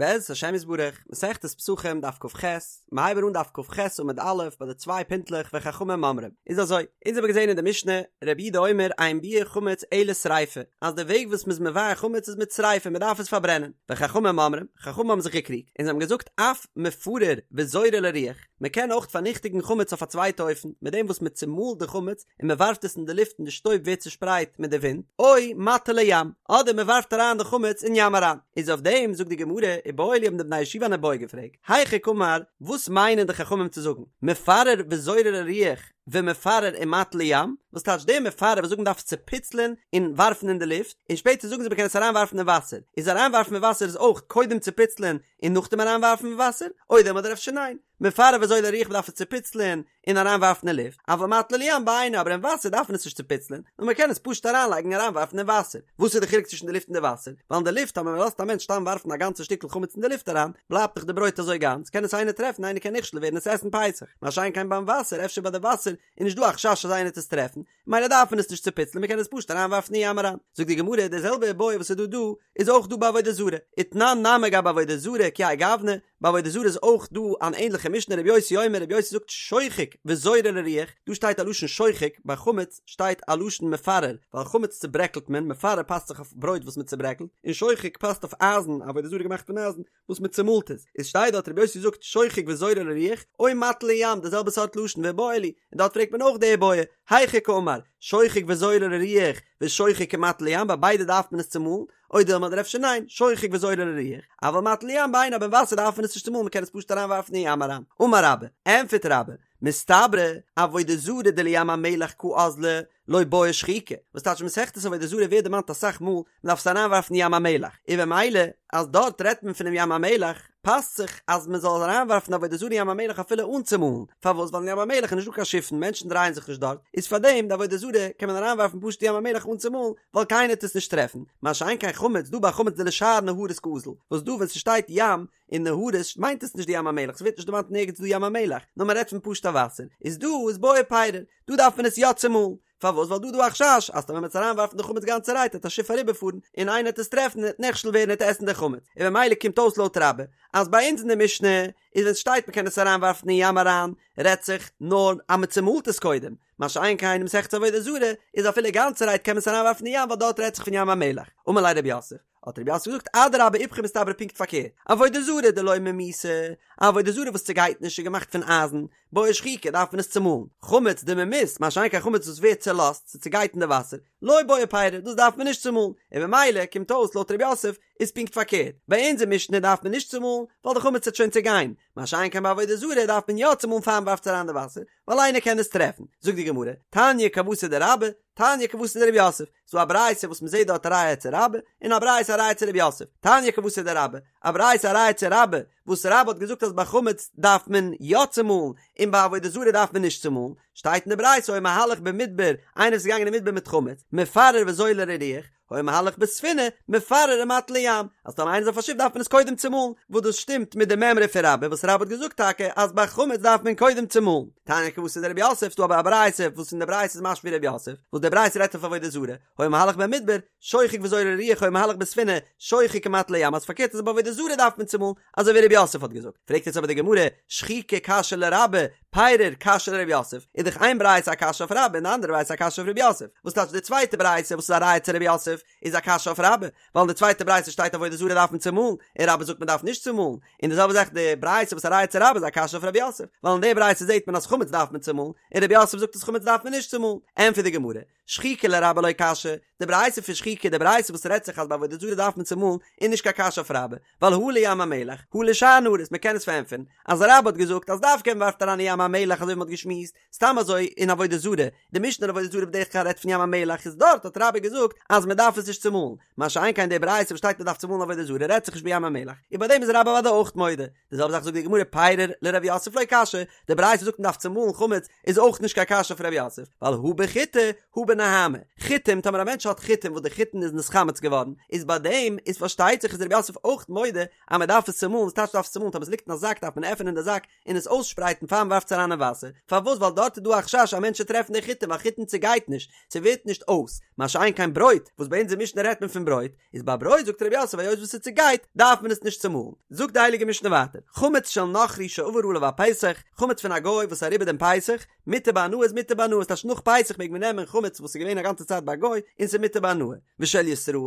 בעזרת השם יתברך, מסכת פסחים דף כ"ח, מיר הייבן אן דף כ"ח עמוד א' ביי די צוויי פינטלעך וחכמים אומרים. איז אזוי, אונז האבן געזען אין די משנה, רבי יהודה אומר אין ביעור חמץ אלא שריפה, אז די וועג וואס מ'איז מבער חמץ איז מיט שריפה, מ'דארף עס פארברענען. וחכמים אומרים, חכמים האבן זיך געקריגט, און זיי האבן געזאגט אף מפרר וזורה לרוח, מ'קען אויך פארניכטיגן חמץ אויף א צווייטע אופן, מיט דעם וואס מ'צומאלט די חמץ און מען ווארפט עס אין די לופט און די שטויב ווערט צושפרייט מיט די ווינט, או מטיל לים, אדער מען ווארפט אריין די חמץ אין ים אריין. איז אויף דעם זאגט די גמרא, איבעיא להו האבן די בני הישיבה אן איבעיא געפרעגט, היכי קאמר, וואס מיינען די חכמים צו זאגן, מפרר וזורה לרוח ומפרר ומטיל לים, וואס טייטש דער מפרר וואס זאגן מען דארף עס צופיצלען און ווארפן אין די לופט, און שפעטער זאגן זיי מען קען עס אריינווארפן אין וואסער, איז אריינווארפן אין וואסער איז אויך קודם צופיצלען און נאכדעם אריינווארפן אין וואסער, או דילמא אדער אפשר ניין, מפרר וזורה לרוח מ'דארף עס צופיצלען און אריינווארפן אין לופט, אבל מטיל לים בעיניה אבער אין וואסער דארף מען עס נישט צופיצלען, נאר מען קען עס פשוט אריינלייגן און אריינווארפן אין וואסער. וואס איז די חילוק צווישן די לופט און די וואסער? ווייל אין די לופט אז מען לאזט א מענטש סתם ווארפן א גאנצע שטיקל חמץ אין די לופט אריין, בלייבט דאך די ברויט אזוי גאנץ, קען עס איינער טרעפן איינער קען נכשל ווערן עס עסן פסח, מה שאין כן ביים וואסער, אפשר ביי די וואסער איז נישט דא א חשש אז איינער וועט עס טרעפן, מילא דארף מען עס נישט צופיצלען מען קען עס פשוט אריינווארפן אין ים אריין. זאגט די גמרא די זעלבע איבעיא וואס איז דא דא איז אויך דא ביי עבודה זרה, ותנן נמי גבי עבודה זרה כי האי גוונא, ביי עבודה זרה איז אויך דא אן ענליכע משנה רבי יוסי אומר רבי יוסי זאגט שוחק וזורה לרוח, דא שטייט א לשון שוחק, ביי חמץ שטייט א לשון מפרר, ווייל חמץ צוברעקלט מען, מפרר פאסט זיך אויף ברויט וואס מען צוברעקלט, און שוחק פאסט אויף אייזן, עבודה זרה געמאכט פון אייזן, וואס מען צומאלט עס, איז שטייט דארט רבי יוסי זאגט שוחק וזורה לרוח, או מטיל לים די זעלבע סארט לשון ואיבעיא להו, און דארט פרעגט מען אויך די איבעיא, היכי קאמר, שוחק וזורה לרוח, ושוחק ומטיל לים ביי ביידע דארף מען עס צומאלן, או דילמא אדער אפשר ניין, שוחק וזורה לרוח, אבל מטיל לים בעיניה אבער אין וואסער דארף מען עס נישט צומאלן מען קען עס פשוט אריין ווארפן אין ים אריין, אמר רבה, ענפערט רבה, מסתברא, עבודה זרה דלים המלח קא אזלא, לא בעי שחיקה, וואס טייטש מסכת עבודה זרה ווערט דערמאנט אסאך מאל, מען דארף עס אריינווארפן אין ים המלח, און במילא אז דארט רעדט מען פונעם ים המלח, פאסט זיך אז מען זאל אריינווארפן עבודה זרה אין ים המלח אפילו אן צומאלן, פארוואס ווייל אין ים המלח איז נישטא קיין שיפן, מענטשן דרייען זיך נישט דארט, איז פארדעם די עבודה זרה קען מען אריינווארפן פשוט אין ים המלח אן צומאלן, ווייל קיינער וועט עס נישט טרעפן, מה שאין כן חמץ, דא ביי חמץ דלשאר נהרות קאזיל, וואס דא ווען ס'שטייט ים, און נהרות מיינט עס נישט די ים המלח, ס'ווערט נישט דערמאנט נערגעץ דא ים המלח, נאר מען רעדט פון פשוט'ע וואסער, איז דא איז בעי פירור, דא דארף מען עס יא צומאלן, פארוואס ווייל דא איז דא א חשש אז טאמער מען וועט אריינווארפן די חמץ גאנצערהייט וועט א שיף אריבערפארן און איינער וועט עס טרעפן און וועט נכשל ווערן און וועט עסן די חמץ, און במילא קומט אויס לויט רבה אז ביי אונז אין די משנה איז ווען ס'שטייט מען קען עס אריינווארפן אין ים אריין רעדט זיך נאר אז מען צומאלט עס קודם, מה שאין כן אין מסכת עבודה זרה איז אפילו גאנצערהייט קען מען עס אריינווארפן אין ים ווייל דארט רעדט זיך פון ים המלח, אמר ליה רב יוסף, האט רב יוסף געזאגט אדרבה איפכא מסתברא פונקט פארקערט, עבודה זרה דלא ממיסה, א עבודה זרה וואס צעגייט נישט איז געמאכט פון אייזן, בעי שחיקה דארף מען עס צומאלן, חמץ דממיס, מה שאין כן חמץ וואס ווערט צעלאזט, ס'צעגייט אין די וואסער, לא בעי פירור, דאס דארף מען נישט צומאלן, און במילא קומט אויס לויט רב יוסף איז פונקט פארקערט, ביי אונזער משנה דארף מען נישט צומאלן, ווייל די חמץ וועט שוין צעגיין, מה שאין כן ביי עבודה זרה דארף מען יא צומאלן פאר מ'ווארפט עס אריין אין די וואסער, ווייל איינער קען עס טרעפן. זאגט די גמרא, תניא כוותיה דרבה, תניא כוותיה דרב יוסף, ס'דא א ברייתא וואס מ'זעט דארט א ראיה צו רבה, און א ברייתא א ראיה צו רב יוסף, תניא כוותיה דרבה, א ברייתא א ראיה צו רבה, וואס רבה האט געזאגט אז ביי חמץ דארף מען יא צומאלן, און ביי עבודה זרה דארף מען נישט צומאלן, שטייט אין די ברייתא היה מהלך במדבר, איינער וואס איז געגאנגען אין מדבר מיט חמץ, מפרר וזורה לרוח, היה מהלך בספינה, מפרר ומטיל לים, אז טאמער איינער איז אויף א שיף דארף מען עס קודם צומאלן, וואס דאס שטימט מיט די מימרא פון רבה וואס רבה האט געזאגט טאקע אז ביי חמץ דארף מען קודם צומאלן. תניא כוותיה דרב יוסף, ס'דא אבער א ברייתא וואס אין די ברייתא איז משמע ווי רב יוסף, וואס די ברייתא רעדט אויף עבודה זרה, היה מהלך במדבר, שוחק וזורה לרוח היה מהלך בספינה, שוחק ומטיל לים, אז פארקערט אז ביי עבודה זרה דארף מען צומאלן, אזוי ווי רב יוסף האט געזאגט. פרעגט יעצט אבער די גמרא, שחיקה קשיא לרבה, פירור קשיא לרב יוסף, איז דאך איין ברייתא א קשיא אויף רבה און די אנדערע ברייתא א קשיא אויף רב יוסף, וואס טייטש די צווייטע ברייתא וואס איז א ראיה צו רב יוסף איז א קשיא אויף רבה, ווייל אין די צווייטע ברייתא שטייט עבודה זרה דארף מען צומאלן, און רבה זאגט מען דארף נישט צומאלן, און די זעלבע זאך די ברייתא וואס איז א ראיה צו רבה איז א קשיא אויף רב יוסף, ווייל אין די ברייתא זעט מען אז חמץ דארף מען צומאלן, און רב יוסף זאגט אז חמץ דארף מען נישט צומאלן, ענטפערט די גמרא, שחיקה לרבה לא קשיא, די ברייתא פון שחיקה, די ברייתא וואס רעדט זיך אז ביי עבודה זרה דארף מען צומאלן, איז נישט קיין קשיא אויף רבה, ווייל הא לים המלח, הא לשאר נהרות, מען קען עס פארענטפערן, אז רבה האט געזאגט אז דווקא ווען מ'ווארפט אריין אין ים המלח אזוי ווי מ'האט געשמועסט, סתם אזוי אין עבודה זרה, די משנה אין עבודה זרה בדרך כלל רעדט פון ים המלח איז דארט האט רבה געזאגט אז מען דארף עס נישט צומאלן, מה שאין כן די ברייתא וואס שטייט מען דארף צומאלן עבודה זרה רעדט זיך נישט בים המלח, און ביי דעם איז רבה אוודאי אויך מודה, די זעלבע זאך זאגט די גמרא פירור לרב יוסף לא קשיא, די ברייתא זאגט מען דארף צומאלן חמץ איז אויך נישט קיין קשיא אויף רב יוסף, ווייל הא בחיטי הא בנהמא, חיטים טאמער א מענטש האט חיטים וואס די חיטין איז נתחמץ געווארן, איז ביי דעם איז פארשטייט זיך איז רב יוסף אויך מודה אז מען דארף עס צומאלן, וואס טייטש דארף עס צומאלן טאמער עס ליגט אין א זאק דארף מען עפענען די זאק און עס אויסשפרייטן פאר מען ווארפט עס. ווארפטס אריין אין וואסער, פארוואס ווייל דארט איז דא א חשש א מענטש צו טרעפן די חיטים ווייל חיטים צעגייט נישט, ס'ווערט נישט אויס, מה שאין כן ברויט, וואס ביי אונזער משנה רעדט מען פון ברויט, איז ביי ברויט זאגט רב יוסף היות וואס ס'צעגייט דארף מען עס נישט צומאלן. זאגט די הייליגע משנה ווייטער, חמץ של נכרי שעבר עליו הפסח, חמץ פון א גוי וואס איז אריבער דעם פסח, מותר בהנאה איז מותר בהנאה, ס'טייטש נאך פסח מעג מען נעמען חמץ וואס איז געווען א גאנצע צייט ביי א גוי און ס'איז מותר בהנאה, ושל ישראל,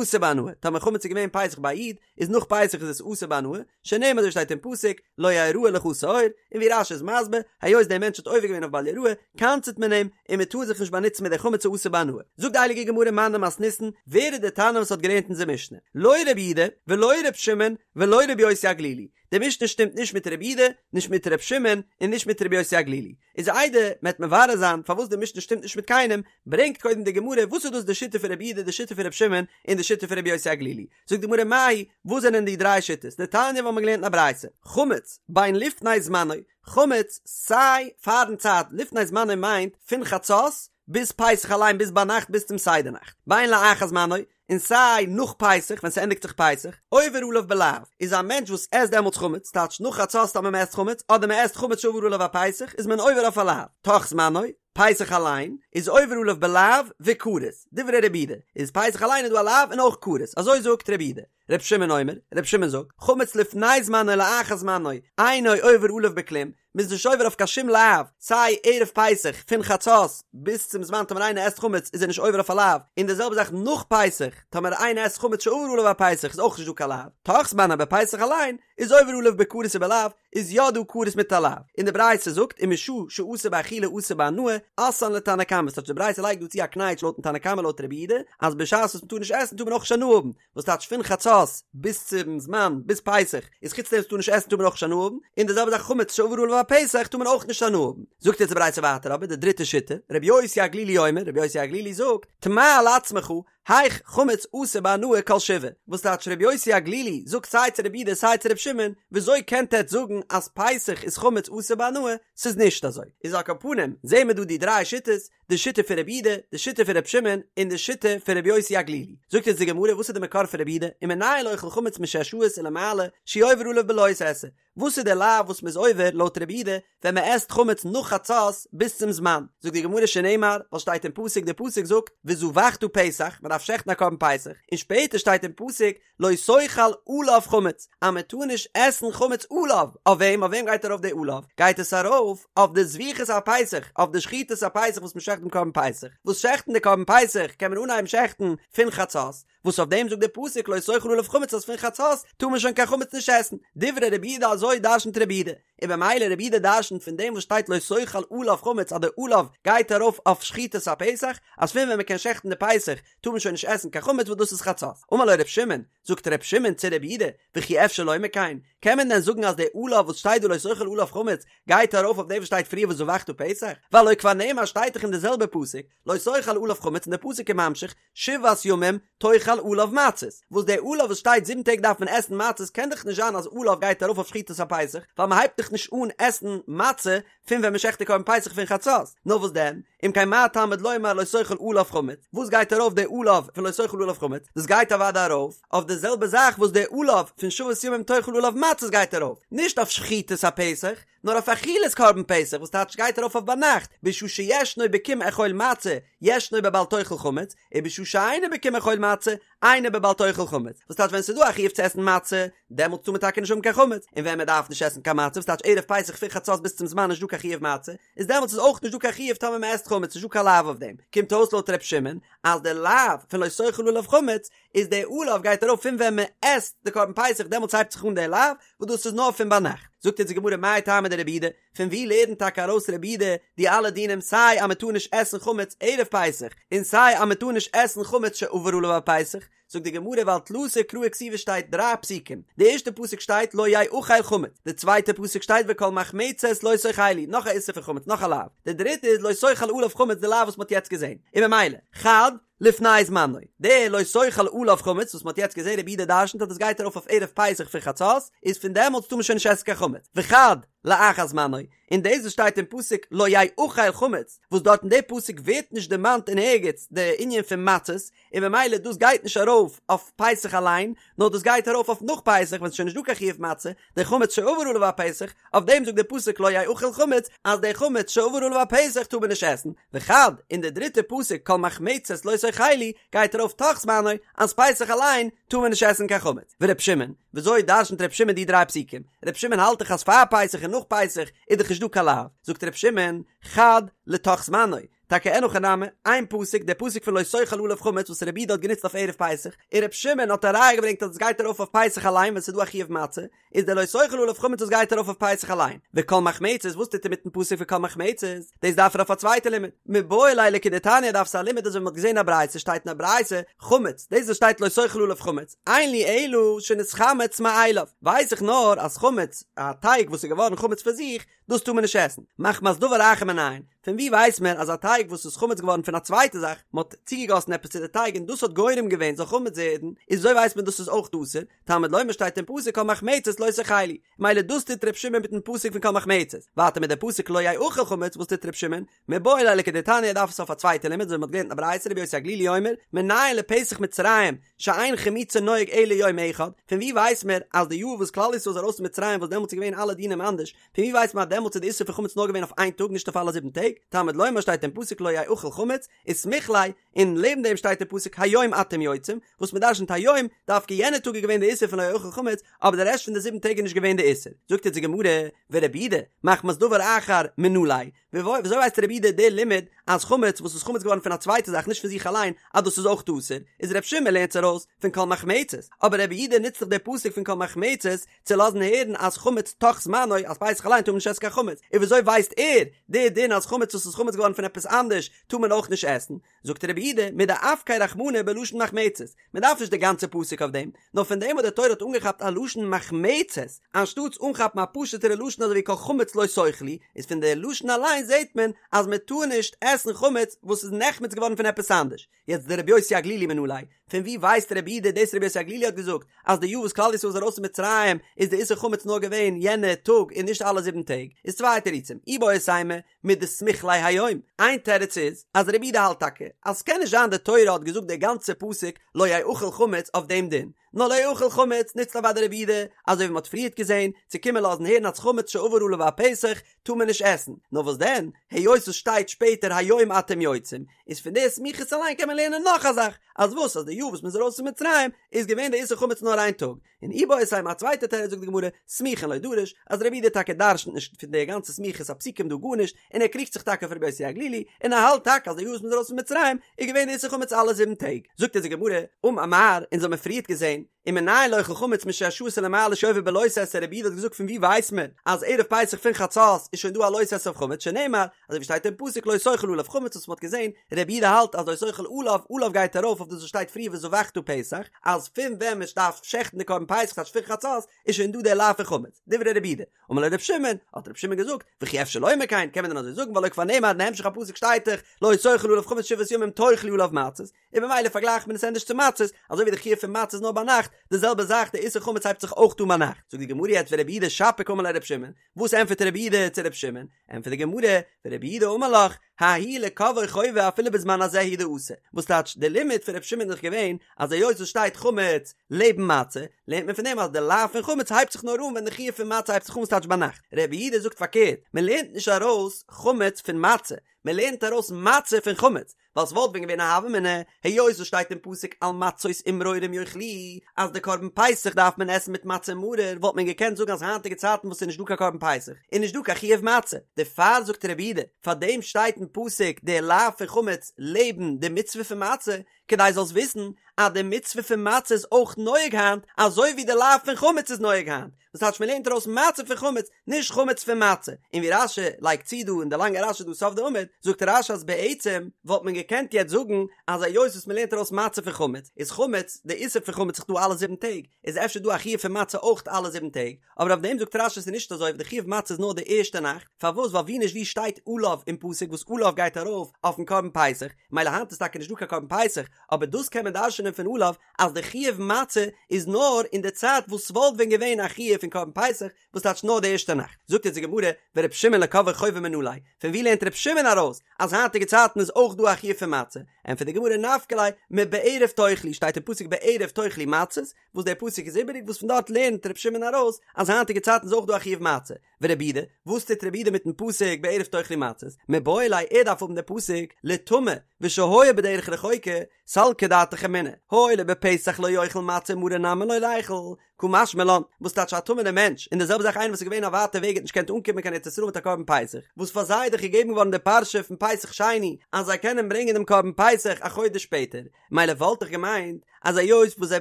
אסור בהנאה, טאמער חמץ איז געווען פסח ביי א איד, איז נאך פסח איז עס אסור בהנאה, שנאמר אזוי שטייט אין פסוק, לא יראה לך שאור, און ווי רש"י איז מסביר, היות דער מענטש האט עובר געווען אויף בל יראה, קנס'ט מען אים, און מען טאר זיך נישט באנוצן מיט די חמץ אסור בהנאה. זאגט די הייליגע גמרא מני מתניתין, ווער איז דער תנא וואס האט געלערנט אונזער משנה? לא רבי יהודה, ולא ר' שמעון, ולא רבי יוסי הגלילי. די משנה שטימט נישט מיט רבי יהודה, נישט מיט ר' שמעון, און נישט מיט רבי יוסי הגלילי. איז איידער מען וועט מברר זיין פארוואס די משנה שטימט נישט מיט קיינעם, ברענגט קודם די גמרא וואס איז דאס די שיטה פון רבי יהודה, די שיטה פון ר' שמעון, און די שיטה פון רבי יוסי הגלילי. זאגט די גמרא מאי, וואס זענען די דריי שיטות? דתניא וואס מ'האט געלערנט אין א ברייתא, חמץ בין לפני זמנו, חמץ סיי פארן צייט, לפני זמנו מיינט פון חצות ביז פסח אליין ביז ביינאכט ביז צום סדר נאכט, בין לאחר זמנו, און סיי נאך פסח ווען ס'ענדיגט זיך פסח, עובר עליו בלאו, איז א מענטש וואס עסט דעמאלטס חמץ, טייטש נאך חצות טאמער מ'עסט חמץ, אדער מ'עסט חמץ שעבר עליו הפסח, איז מען עובר אויף א לאו, תוך זמנו, פסח אליין, איז עובר עליו בלאו וכרת, דברי רבי יהודה, איז פסח אליין איז דא א לאו און אויך כרת, אזוי זאגט רבי יהודה. רבי שמעון אומר, רבי שמעון זאגט, חמץ לפני זמנו לאחר זמנו, אינו עובר עליו בכלום, מ'איז נישט עובר אויף קיין שום לאו, סיי ערב פסח פון חצות ביז צום זמן טאמער איינער עסט חמץ איז ער נישט עובר אויף א לאו, און די זעלבע זאך נאך פסח, טאמער איינער עסט חמץ שעבר עליו הפסח איז אויך נישט דא קיין לאו, תוך זמנו אבער פסח אליין איז עובר עליו בכרת ובלאו, איז יא דא כרת מיט א לאו, און די ברייתא זאגט ומשעה שאסור באכילה אסור בהנאה, אתאן לתנא קמא, ס'טייטש די ברייתא לייגט דא צו א קנייטש לויטן תנא קמא לויט רבי יהודה, אז בשעת וואס מ'טאר נישט עסן טאר מען אויך נישט הנאה האבן, וואס טייטש פון חצות ביז צום זמן ביז פסח איז חוץ דעם וואס מ'טאר נישט עסן טאר מען אויך נישט הנאה האבן, און די זעלבע זאך חמץ שעבר עליו הפסח טאר מען אויך נישט הנאה האבן. זאגט יעצט די ברייתא ווייטער אבער די דריטע שיטה, רבי יוסי הגלילי אומר, רבי יוסי הגלילי זאגט, תמה על עצמך, היאך חמץ אסור בהנאה כל שבעה, וואס טייטש רבי יוסי הגלילי זאגט סיי צו רבי יהודה סיי צו רבי שמעון, וויאזוי קענט עטץ זאגן אז פסח איז חמץ אסור בהנאה, ס'איז נישט אזוי. איז על כל פנים זעהן מיר דא די דריי שיטות, די שיטה פון רבי יהודה, די שיטה פון רבי שמעון, און די שיטה פון רבי יוסי הגלילי. זאגט אונז די גמרא וואס איז די מקור פון רבי יהודה, ומנין לאוכל חמץ משש שעות ולמעלה, שהוא עובר עליו בלא תעשה, וואס איז די לאו וואס מ'איז עובר לויט רבי יהודה ווען מ'עסט חמץ נאך חצות ביז צום זמן? זאגט די גמרא שנאמר, ווייל שטייט אין פסוק, די פסוק זאגט וזבחת פסח, מ'דארף שעכטן א קרבן פסח, און שפעטער שטייט אין פסוק לא תאכל עליו חמץ, אז מ'טאר נישט עסן חמץ עליו, אויף וועם? אויף וועם גייט ארויף די עליו? גייט עס ארויף אויף די זביחת הפסח, אויף די שחיטת הפסח וואס מ'שעכט דעם קרבן פסח, וואס שעכטן די קרבן פסח קען מען אנהייבן שעכטן פון חצות, וואס אויף דעם זאגט דער פסוק לא תאכל עליו חמץ אז פון חצות טאר מען שוין קיין חמץ נישט עסן, דברי רבי יהודה אזוי דרשנ'ט רבי יהודה, און במילא רבי יהודה דרשנ'ט פון דעם וואס שטייט לא תאכל עליו חמץ אז די עליו גייט ארויף אויף שחיטת הפסח, אז פון ווען מען קען שעכטן די פסח טאר מען שוין נישט עסן קיין חמץ וואס דאס איז חצות. אמר לו ר' שמעון, זאגט ר' שמעון צו רבי יהודה, וכי אפשר לומר כן, קען מען דען זאגן אז די עליו וואס שטייט דא לא תאכל עליו חמץ גייט ארויף אויף דעם וואס שטייט פריער וזבחת פסח, והלא כבר נאמר שטייט דאך אין די זעלבע פסוק לא תאכל עליו חמץ און די פסוק איז ממשיך שבעת ימים תאכל עליו מצות, וואס די עליו וואס שטייט זיבן טעג דארף מען עסן מצות קען דאך נישט זיין אז עליו גייט ארויף אויף שחיטת הפסח, ווייל מען הייבט דאך נישט אן עסן מצה פון ווען מען שעכט די קרבן פסח פון חצות, נאר וואס דען, אם כן מה תלמוד לומר לא תאכל עליו חמץ, וואס גייט ארויף די עליו פון לא תאכל עליו חמץ, דאס גייט אוודאי ארויף אויף די זעלבע זאך וואס די עליו פון שבעת ימים תאכל עליו מצות גייט ארויף, נישט אויף שחיטת הפסח, נאר אויף אכילת קרבן פסח וואס טייטש גייט ארויף אויף ביינאכט, בשעה שישנו בקום אכול מצה, ישנו בבל תאכל חמץ, ובשעה שאינו בקום אכול מצה, אינו בבל תאכל חמץ, וואס טייטש ווען ס'איז דא א חיוב צו עסן מצה, דעמאלטס טאר מען טאקע נישט האבן קיין חמץ, און ווען מען דארף נישט עסן קיין מצה, וואס טייטש ערב פסח פון חצות ביז צום זמן נישט דא קיין חיוב מצה, איז דעמאלטס איז אויך נישט דא קיין חיוב טאמער מען עסט חמץ, נישט דא קיין לאו אויף דעם, קומט אויס לויט ר' שמעון אז די לאו פון לא תאכל עליו חמץ איז די עליו גייט ארויף פון ווען מען עסט די קרבן פסח דעמאלטס הייבט זיך אן די לאו וואס דאס איז נאר פון ביינאכט. זאגט אונז די גמרא מאי טעמא דרבי יהודה, פון ווי לערנט טאקע ארויס רבי יהודה די אלע דינים סיי אז מען טאר נישט עסן חמץ ערב פסח און סיי אז מען טאר נישט עסן חמץ שעבר עליו הפסח, זאגט די גמרא ווייל תלתא קראי כתיבי שטייט דריי פסוקים, די ערשטע פסוק שטייט לא יאכל חמץ, די צווייטע פסוק שטייט וכל מחמצת לא תאכלו, נאך א איסור פון חמץ נאך א לאו, די דריטע איז לא תאכל עליו חמץ די לאו וואס מען האט יעצט געזען, און ממילא, חד, לפני זמנו, די לא תאכל עליו חמץ וואס מען האט יעצט געזען רבי יהודה דרשנ'ט אז דאס גייט ארויף אויף ערב פסח פון חצות, איז פון דעמאלטס טאר מען שוין נישט עסן קיין חמץ, וחד. לאחר זמנו, און דאס וואס שטייט אין פסוק לא יאכל חמץ, וואס דארט אין די פסוק ווערט נישט דערמאנט אין ערגעץ די ענין פון מצות, און במילא דאס גייט נישט ארויף אויף פסח אליין, נאר דאס גייט ארויף אויף נאך פסח ווען ס'איז שוין נישט דא קיין חיוב מצה, די חמץ שעבר עליו הפסח, אויף דעם זאגט די פסוק לא יאכל חמץ, אז די חמץ שעבר עליו הפסח טאר מען נישט עסן, וחד, און די דריטע פסוק כל מחמצת לא תאכלו גייט ארויף תוך זמנו, אז פסח אליין טאר מען נישט עסן קיין חמץ. ור' שמעון, וויאזוי דרשנ'ט ר' שמעון די דריי פסוקים? ר' שמעון האלט דאך אז פאר פסח און נאך פסח איז דאך נישט דא קיין לאו, זאגט ר' שמעון, חד לתוך זמנו, טאקע אין הכי נמי, איין פסוק, דער פסוק פון לא תאכל עליו חמץ וואס רבי יהודה האט גענוצט אויף ערב פסח, און ר' שמעון האט א ראיה געברענגט אז עס גייט ארויף אויף פסח אליין ווען ס'איז דא א חיוב מצה, איז דער לא תאכל עליו חמץ וואס גייט ארויף אויף פסח אליין. וכל מחמצת, וואס טוט ער מיטן פסוק פון כל מחמצת? דאס דארף ער אויף א צווייטע לימוד. מיבעי ליה לכדתניא דארף עס א לימוד אזוי ווי מ'האט געזען א ברייתא שטייט אין א ברייתא, חמץ, דאס וואס שטייט לא תאכל עליו חמץ, אין לי אלא שנתחמץ מאליו, ווייס איך נאר אז חמץ, א טייג וואס איז געווארן חמץ פון זיך, דאס טאר מען נישט עסן, מחמת דבר אחר מנין, פון ווי ווייסט מען אז א טייג וואס איז חמץ געווארן פון א צווייטע זאך, מען האט צוגעגאסן עפעס צו די טייג און דאס האט גורם געווען זאל חמץ ווערן, איז וויאזוי ווייסט מען דאס איז אויך אסור, תלמוד לומר שטייט אין פסוק כל מחמצת לא תאכלו, מילא דאס טוט ר' שמעון מיטן פסוק פון כל מחמצת, ווייטער מיט די פסוק לא יאכל חמץ וואס טוט ר' שמעון, מיבעי ליה לכדתניא דארף עס אויף א צווייטע לימוד אזוי ווי מען האט געלערנט אין א ברייתא רבי יוסי הגלילי אומר מנין לפסח מצרים שאין חימוצו נוהג אלא יום אחד, פון ווי ווייסט מען אז די יאר וואס כלל ישראל איז ארויס פון מצרים וואס דעמאלטס איז געווען אלע דינים אנדערש, פון ווי ווייסט מען אז דעמאלטס איז די איסור פון חמץ נאר געווען אויף איין טאג נישט אויף אלע זיבן טעג, תלמוד לומר שטייט אין פסוק לא יאכל חמץ, וסמיך ליה, און לעבן דעם שטייט אין פסוק היום אתם יוצאים, וואס מען דרשנ'ט היום, דווקא יענע טאג איז געווען די איסור פון לא יאכל חמץ, אבער די רעשט פון די זיבן טעג איז נישט געווען די איסור. זאגט אונז די גמרא, ורבי יהודה, מחמת דבר אחר מנא ליה, וויאזוי ווייסט רבי יהודה די לימוד אז חמץ וואס איז חמץ געווארן פון א צווייטע זאך נישט פון זיך אליין אז דאס איז אויך אסור, איז רבי שמעון לערנט עס ארויס פון כל מחמצת, אבער רבי יהודה נוצט דאך די פסוק פון כל מחמצת צו לאזן הערן אז חמץ תוך זמנו אז פסח אליין טאר מען נישט עסן קיין חמץ, און וויאזוי ווייסט ער די דין אז חמץ וואס איז חמץ געווארן פון עפעס אנדערש טאר מען אויך נישט עסן? זאגט רבי יהודה, מדאפקיה רחמנא בלשון מחמצת, מען דארף נישט די גאנצע פסוק אויף דעם, נאר פון דעם וואס די תורה האט אנגעכאפט א לשון מחמצת, אנשטאטס אנכאפן א פשוט'ערע לשון אזוי ווי כל חמץ לא תאכלו, איז פון די לשון אליין זעט מען אז מען טאר נישט עסן חמץ וואס איז נחמץ געווארן פון עפעס אנדערש. יעצט דרבי יוסי הגלילי מנא ליה, פון ווי ווייסט רבי יהודה דאס רבי יוסי הגלילי האט געזאגט אז די יאר וואס כלל ישראל איז ארויס פון מצרים איז די איסור חמץ נאר געווען יענע טאג און נישט אלע זיבן טעג, איז צוויי תירוצים, איבעית אימא, מדסמיך ליה היום, איין תירוץ איז אז רבי יהודה האלט טאקע אז ס'קען נישט זיין די תורה האט געזאגט די גאנצע פסוק לא יאכל חמץ אויף דעם דין, נאר לא יאכל חמץ נוצט אוודאי רבי יהודה, אזוי ווי מ'האט פריערט געזען, צו קומען לאזן הערן אז חמץ שעבר עליו הפסח טאר מען נישט עסן, נאר וואס דען, היות עס שטייט שפעטער היום אתם יוצאים, איז פון די סמיכות אליין קען מען לערנען נאך א זאך, אז וואס אז די יאר וואס מ'איז ארויס פון מצרים איז געווען די איסור חמץ נאר איין טאג, און איבעית אימא א צווייטע תירוץ זאגט די גמרא, סמוכין לא דריש, אז רבי יהודה טאקע דרשנ'ט נישט פון די גאנצע סמיכות הפסוקים דא גארנישט, און ער קריגט זיך טאקע אויף רבי יוסי הגלילי, און ער האלט טאקע אז די יאר וואס מ'איז ארויס פון מצרים איז געווען די איסור חמץ אלע זיבן טעג. זאגט אונז די גמרא, אמר מר, אונז האמיר פריערט געזען, ומנין לאוכל חמץ משש שעות ולמעלה שעובר בלא תעשה רבי יהודה האט געזאגט פון ווי ווייסט מען אז ערב פסח פון חצות איז שוין דא א לא תעשה אויף חמץ שנאמר אזוי ווי שטייט אין פסוק לא תאכל עליו חמץ וואס מ'האט געזען רבי יהודה האלט אז לא תאכל עליו עליו גייט ארויף אויף דאס וואס שטייט פריער וזבחת פסח אז פון ווען מען דארף שעכטן די קרבן פסח טייטש פון חצות איז שוין דא דער לאו פון חמץ דברי רבי יהודה אמר לו רבי שמעון האט רבי שמעון געזאגט וכי אפשר לומר כן קען מען דען אזוי זאגן והלא כבר נאמר אין המשך הפסוק שטייט דאך לא תאכל עליו חמץ שבעת ימים תאכלו עליו מצות און במילא פארגלייכט מען עס ענדערש צו מצות, אזוי ווי די חיוב פון מצות איז נאר ביינאכט, די זעלבע זאך די איסור חמץ הייבט זיך אויך אן ביינאכט. זאגט די גמרא יעצט ורבי יהודה שפיר קאמר ליה לרבי שמעון, וואס ענטפערט רבי יהודה צו רבי שמעון? ענטפערט די גמרא, ורבי יהודה אמר לך, ההוא לקובעו חובה אפילו בזמן הזה הוא דאתא, וואס טייטש די לימוד פון רבי שמעון איז דאך געווען אז היות עס שטייט חמץ לעבן מצה, לערנט מען פון דעם אז די לאו פון חמץ הייבט זיך נאר אן ווען די חיוב פון מצה הייבט זיך אן ס'טייטש ביינאכט. רבי יהודה זאגט פארקערט, מען לערנט נישט ארויס חמץ פון מצה, מען לערנט ארויס מצה פון חמץ, ווייל ס'וואלט ווען געווען א הוה אמינא, היות עס שטייט אין פסוק על מצות ומרורים יאכלוהו, אז די קרבן פסח דארף מען עסן מיט מצה און מרור, וואלט מען געקענט זאגן אז היינטיגע צייטן וואס ס'איז נישט דא קיין קרבן פסח, איז נישט דא קיין חיוב מצה. דערפאר זאגט רבי יהודה, פאר דעם שטייט אין פסוק די לאו פון חמץ לעבן די מצוה פון מצה, כדי זאלסט וויסן אז די מצוה פון מצה איז אויך נוהג היינט, אזוי ווי די לאו פון חמץ איז נוהג היינט. וואס טייטש מ'לערנט ארויס מצה פון חמץ, נישט חמץ פון מצה. און ווי רש"י לייגט צו דא אין די לאנגע רש"י דא סוף די עמוד, זאגט רש"י אז בעצם וואלט מען געקענט יעצט זאגן אז היות וואס מ'לערנט ארויס מצה פון חמץ, איז חמץ, די איסור פון חמץ איז דא אלע זיבן טעג, איז אפשר דא א חיוב פון מצה אויך אלע זיבן טעג, אבער אויף דעם זאגט רש"י ס'איז נישט אזוי, די חיוב מצה איז נאר די ערשטע נאכט, פארוואס ווייל ווי נישט ווי שטייט עליו אין פסוק וואס עליו גייט ארויף אויפן קרבן פסח, מילא היינט איז טאקע נישט דא קיין קרבן פסח, אבער דאס קען מען דרש'נען פון עליו אז די חיוב מצה איז נאר אין די צייט וואס ס'וואלט ווען געווען א חיוב פון קרבן פסח, וואס טייטש נאר די ערשטע נאכט? זאגט אונז די גמרא, ור' שמעון לקובעי חובה מנא ליה, פון ווי לערנט ר' שמעון ארויס אז היינטיגע צייטן איז אויך דא א חיוב פון מצה? ענטפערט די גמרא נפקא ליה מבערב תאכלו, שטייט אין פסוק בערב תאכלו מצות, וואס דער פסוק איז איבעריג וואס פון דארט לערנט ר' שמעון ארויס אז היינטיגע צייטן איז אויך דא א חיוב מצה. ורבי יהודה, וואס טוט רבי יהודה מיטן פסוק בערב תאכלו מצות? מיבעי ליה ער דארף האבן די פסוק לטמא ושהיה בדרך רחוקה, סלקא דעתך אמינא, הואיל ובפסח לא יאכל מצה ומרור נמי לא ליכול, קא משמע לן, וואס טייטש א טמא'נער מענטש, און די זעלבע זאך איינער וואס איז געווען א ווייטע וועג האט נישט געקענט אנקומען קיין ארץ ישראל מיט א קרבן פסח, וואס פאר זיי איז דאך געגעבן געווארן די פרשה פון פסח שני אז זיי קענען ברענגען דעם קרבן פסח א חודש שפעטער, מילא וואלט איך געמיינט אז היות וואס זיי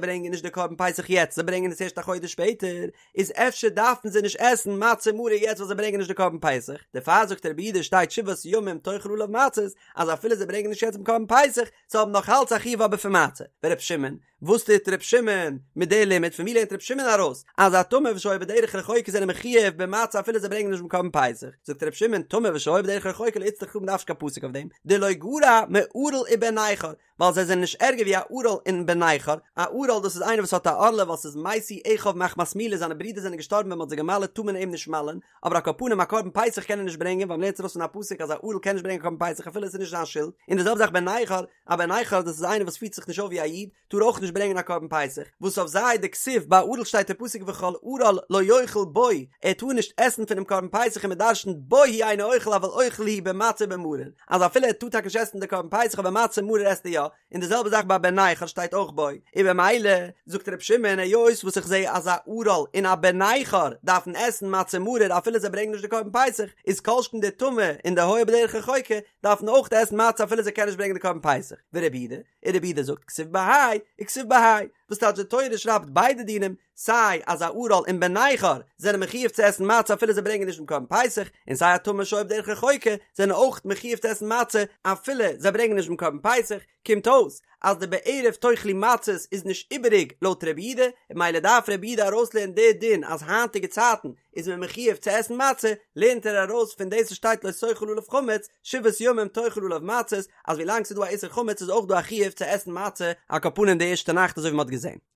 ברענגען נישט די קרבן פסח יעצט זיי ברענגען עס ערשט א חודש שפעטער, איז אפשר דארפן זיי נישט עסן מצה ומרור יעצט ווייל זיי ברענגען נישט די קרבן פסח, דערפאר זאגט רבי יהודה שטייט שבעת ימים תאכל עליו מצות, אז אפילו זיי ברענגען נישט יעצט דעם קרבן פסח, זיי האבן נאך אלץ א חיוב אבער פון מצה. ור' שמעון, וואס טוט ר' שמעון מיט די לימוד? פון ווי לערנט ר' שמעון ארויס אז א טמא ושהיה בדרך רחוקה זענען מחויב במצה אפילו זיי ברענגען נישט דעם קרבן פסח? זאגט ר' שמעון, טמא ושהיה בדרך רחוקה לא איצטריך קרא, מ'דארף נישט קיין פסוק אויף דעם, דלא גרע מערל ובן נכר, ווייל זיי זענען נישט ערגער ווי א ערל און בן נכר, א ערל דאס איז איינער וואס האט א ערלה ווייל ס'איז מתו אחיו מחמת מילה זיינע ברידער זענען געשטארבן ווען מ'האט זיי געמל'עט טאר מען אים נישט מל'ען, אבער על כל פנים א קרבן פסח קען ער נישט ברענגען ווייל מ'לערנט ארויס פון א פסוק אז א ערל קען נישט ברענגען א קרבן פסח אפילו עס איז נישט זיין שולד, און די זעלבע זאך בן נכר, א בן נכר דאס איז איינער וואס פירט זיך נישט אויף ווי א איד, טאר אויך נישט ברענגען א קרבן פסח, וואס אויף זיי דכתיב ביי ערל שטייט אין פסוק וכל ערל לא יאכל בו, ער טאר נישט עסן פונעם קרבן פסח און מ'דרשנ'ט בו הוא אינו אוכל אבל אוכל הוא במצה ובמרור, אז אפילו ער טאר טאקע נישט עסן די קרבן פסח אבער מצה ומרור עסט ער יא, און די זעלבע זאך ביי בן נכר שטייט אויך בו, און במילא זאגט ר' שמעון היות וואס איך זע אז א ערל און א בן נכר דארפן עסן מצה ומרור אפילו זיי ברענגען נישט די קרבן פסח, איז כל שכן די טמא און די היה בדרך רחוקה דארפן אויך עסן מצה אפילו זיי קענען נישט ברענגען די קרבן פסח, ורבי יהודה, און רבי יהודה זאגט כתיב בהאי וכתיב בהאי, וואס טייטש די תורה שרייבט ביידע דינים, סיי אז א ערל און בן נכר זענען מחויב צו עסן מצה אפילו זיי ברענגען נישט דעם קרבן פסח, און סיי א טמא שהיה בדרך רחוקה זענען אויך מחויב צו עסן מצה אפילו זיי ברענגען נישט דעם קרבן פסח, קומט אויס אז די בערב תאכלו מצות איז נישט איבעריג לויט רבי יהודה, און ממילא דארף רבי יהודה ארויסלערנען די דין אז היינטיגע צייטן איז מען מחויב צו עסן מצה, לערנט ער ארויס פון דאס וואס שטייט לא תאכל עליו חמץ, שבעת ימים תאכל עליו מצות, אז ווילאנג ס'איז דא א איסור חמץ איז אויך דא א חיוב צו עסן מצה, על כל פנים די ערשטע נאכט אזוי ווי מ'האט געזען.